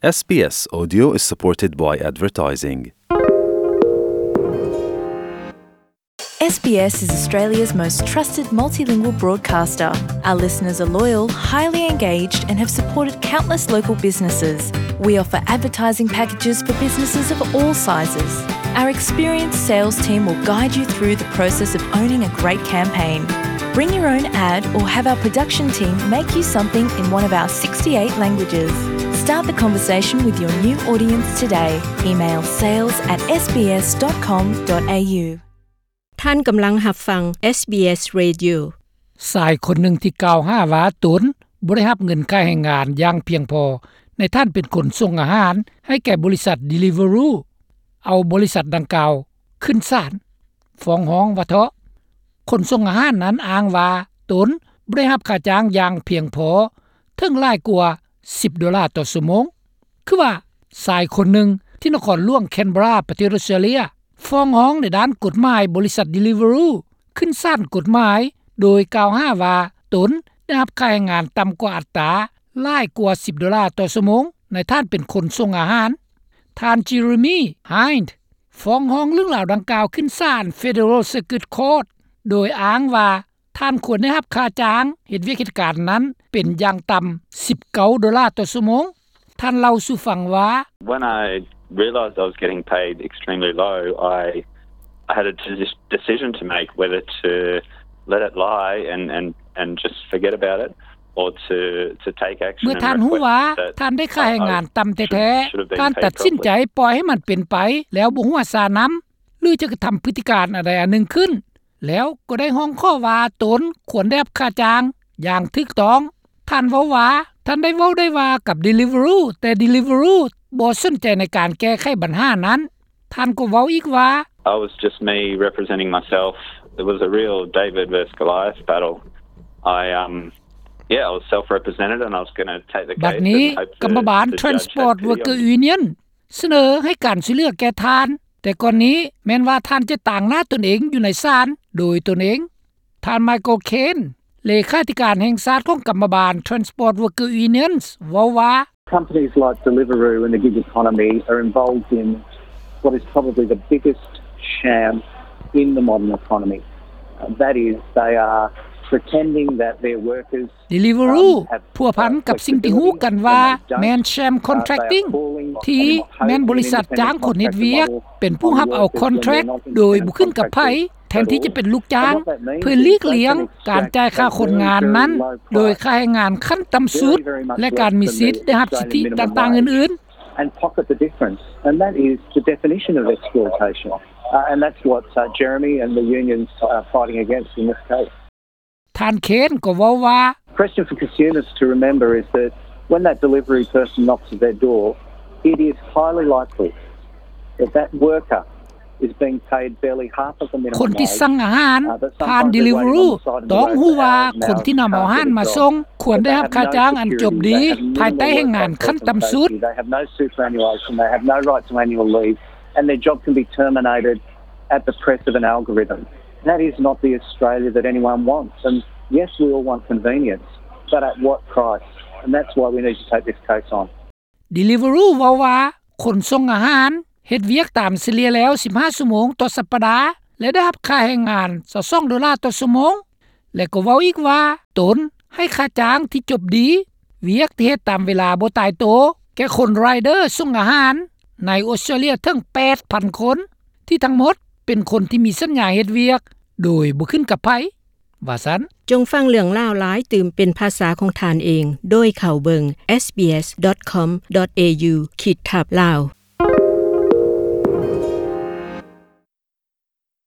SBS Audio is supported by advertising. SBS is Australia's most trusted multilingual broadcaster. Our listeners are loyal, highly engaged, and have supported countless local businesses. We offer advertising packages for businesses of all sizes. Our experienced sales team will guide you through the process of owning a great campaign. Bring your own ad or have our production team make you something in one of our sixty-eight languages. Start the conversation with your new audience today. Email sales at SBS dot com dot A U. ທ່ານກຳລັງຮັບຟັງ SBS Radio. ຊາຍຄົນໜຶ່ງທີ່ກ່າວຫາວ່າຕົນບໍ່ໄດ້ຮັບເງິນຄ່າແຮງງານຢ່າງພຽງພໍ ໃນທ່ານເປັນຄົນສົ່ງອາຫານໃຫ້ແກ່ບໍລິສັດ Deliveroo ເອົາບໍລິສັດດັ່ງກ່າວຂຶ້ນສານ ຟ້ອງຮ້ອງວ່າເທາະ. ຄົນສົ່ງອາຫານນັ້ນອ້າງວ່າຕົນບໍ່ໄດ້ຮັບຄ່າຈ້າງຢ່າງພຽງພໍ ເຖິງຫຼາຍກວ່າສິບໂດລາຕໍ່ຊົ່ວໂມງ. ຄືວ່າຊາຍຄົນໜຶ່ງທີ່ນະຄອນຫຼວງ Canberra ປະເທດ Australia ຟ້ອງຮ້ອງໃນດ້ານກົດໝາຍບໍລິສັດ Deliveroo ຂຶ້ນສານກົດໝາຍ ໂດຍກ່າວຫາວ່າຕົນໄດ້ຮັບຄ່າແຮງງານຕ່ຳກວ່າອັດຕາຫຼາຍກວ່າສິບໂດລາຕໍ່ຊົ່ວໂມງ ໃນທ່ານເປັນຄົນສົ່ງອາຫານ. ທ່ານ Jeremy Hind ຟ້ອງຮ້ອງເລື່ອງລາວດັ່ງກ່າວຂຶ້ນສານ Federal Circuit Court ໂດຍອ້າງວ່າ ທ່ານຄວນໄດ້ຮັບຄ່າຈ້າງເຮັດວຽກເຮັດການນັ້ນເປັນຢ່າງຕ່ຳສິບເກົ້າໂດລາຕໍ່ຊົ່ວໂມງ. ທ່ານເລົ່າສູ່ຟັງວ່າ When I realised I was getting paid extremely low, I, I had a deci- decision to make whether to let it lie and, and, and just forget about it or to, to take action. ເມື່ອທ່ານຮູ້ວ່າທ່ານໄດ້ຄ່າແຮງງານຕ່ຳແທ້ໆ ທ່ານຕັດສິນໃຈປ່ອຍໃຫ້ມັນເປັນໄປ ແລ້ວບໍ່ຫົວຊານຳ ຫຼື ຈະກະທຳພຶດຕິການອັນໃດອັນໜຶ່ງຂຶ້ນ ແລ້ວກໍໄດ້ຮ້ອງຂໍວ່າຕົນຄວນໄດ້ຮັບຄ່າຈ້າງຢ່າງຖືກຕ້ອງ. ທ່ານເວົ້າວ່າ ທ່ານໄດ້ເວົ້າໄດ້ວ່າກັບ Deliveroo ແຕ່ Deliveroo ບໍ່ສົນໃຈໃນການແກ້ໄຂບັນຫານັ້ນ. ທ່ານກໍເວົ້າອີກວ່າ It was just me representing myself. It was a real David versus Goliath battle. I, um, yeah, I was self-represented and I was gonna take the case. ບັດນີ້ ກຳມະບານ Transport Worker Union ສະເໜີໃຫ້ການຊ່ວຍເຫຼືອແກ່ທ່ານ, ແຕ່ກ່ອນນີ້ແມ່ນວ່າທ່ານຈະຕາງໜ້າຕົນເອງຢູ່ໃນສານໂດຍຕົນເອງ. ທ່ານ Michael Caine ເລຂາທິການແຫ່ງຊາດຂອງກຳມະບານ Transport Worker Unions ເວົ້າວ່າ Companies like Deliveroo and the gig economy are involved in what is probably the biggest sham in the modern economy. Uh, that is, they are pretending that their workers Deliveroo ພົວພັນກັບສິ່ງທີ່ຮູ້ກັນວ່າແມ່ນ sham contracting ທີ່ແມ່ນບໍລິສັດຈ້າງຄົນເຮັດວຽກເປັນຜູ້ຮັບເອົາ contract ໂດຍບໍ່ຂຶ້ນກັບໃຜ ແທນທີ່ຈະເປັນລູກຈ້າງ ເພື່ອຫຼີກລ່ຽງການຈ່າຍຄ່າຄົນງານນັ້ນໂດຍຄ່າແຮງງານຂັ້ນຕ່ຳສຸດ ແລະ ການມີສິດໄດ້ຮັບສິດທິຕ່າງໆອື່ນໆ. And pocket the difference. And that is the definition of exploitation. Uh, and that's what, uh, Jeremy and the unions are fighting against in this case. ທ່ານ Caine ກໍເວົ້າວ່າ Question for consumers to remember is that when that delivery person knocks at their door, it is highly likely that that worker is being paid barely half of the minimum wage. ຄົນທີ່ສັ່ງອາຫານຜ່ານ Deliveroo ຕ້ອງຮູ້ວ່າຄົນທີ່ນຳເອົາອາຫານມາສົ່ງຄວນໄດ້ຮັບຄ່າຈ້າງອັນຈົບດີ ພາຍໃຕ້ແຮງງານຂັ້ນຕ່ຳສຸດ. They have no superannuation, they have no right to annual leave, and their job can be terminated at the press of an algorithm. That is not the Australia that anyone wants. And yes, we all want convenience, but at what price? And that's why we need to take this case on. Deliveroo ເວົ້າວ່າ ຄົນສົ່ງອາຫານເຮັດວຽກຕາມສະເລ່ຍແລ້ວສິບຫ້າຊົ່ວໂມງຕໍ່ສັບປະດາ ແລະ ໄດ້ຮັບຄ່າແຮງງານຊາວສອງໂດລາຕໍ່ຊົ່ວໂມງ ແລະ ກໍເວົ້າອີກວ່າ ຕົນໃຫ້ຄ່າຈ້າງທີ່ຈົບດີ, ວຽກທີ່ເຮັດຕາມເວລາບໍ່ຕາຍໂຕ ແກ່ຄົນ rider ສົ່ງອາຫານໃນອົດສະຕຣາເລຍເຖິງແປດພັນຄົນ ທີ່ທັງໝົດເປັນຄົນທີ່ມີສັນຍາເຮັດວຽກໂດຍບໍ່ຂຶ້ນກັບໃຜ ວ່າຊັ້ນ. ຈົ່ງຟັງເລື່ອງລາວຫຼາຍຕື່ມເປັນພາສາຂອງທ່ານເອງ ໂດຍເຂົ້າເບິ່ງ SBS dot com dot A U ຂີດທັບ Lao.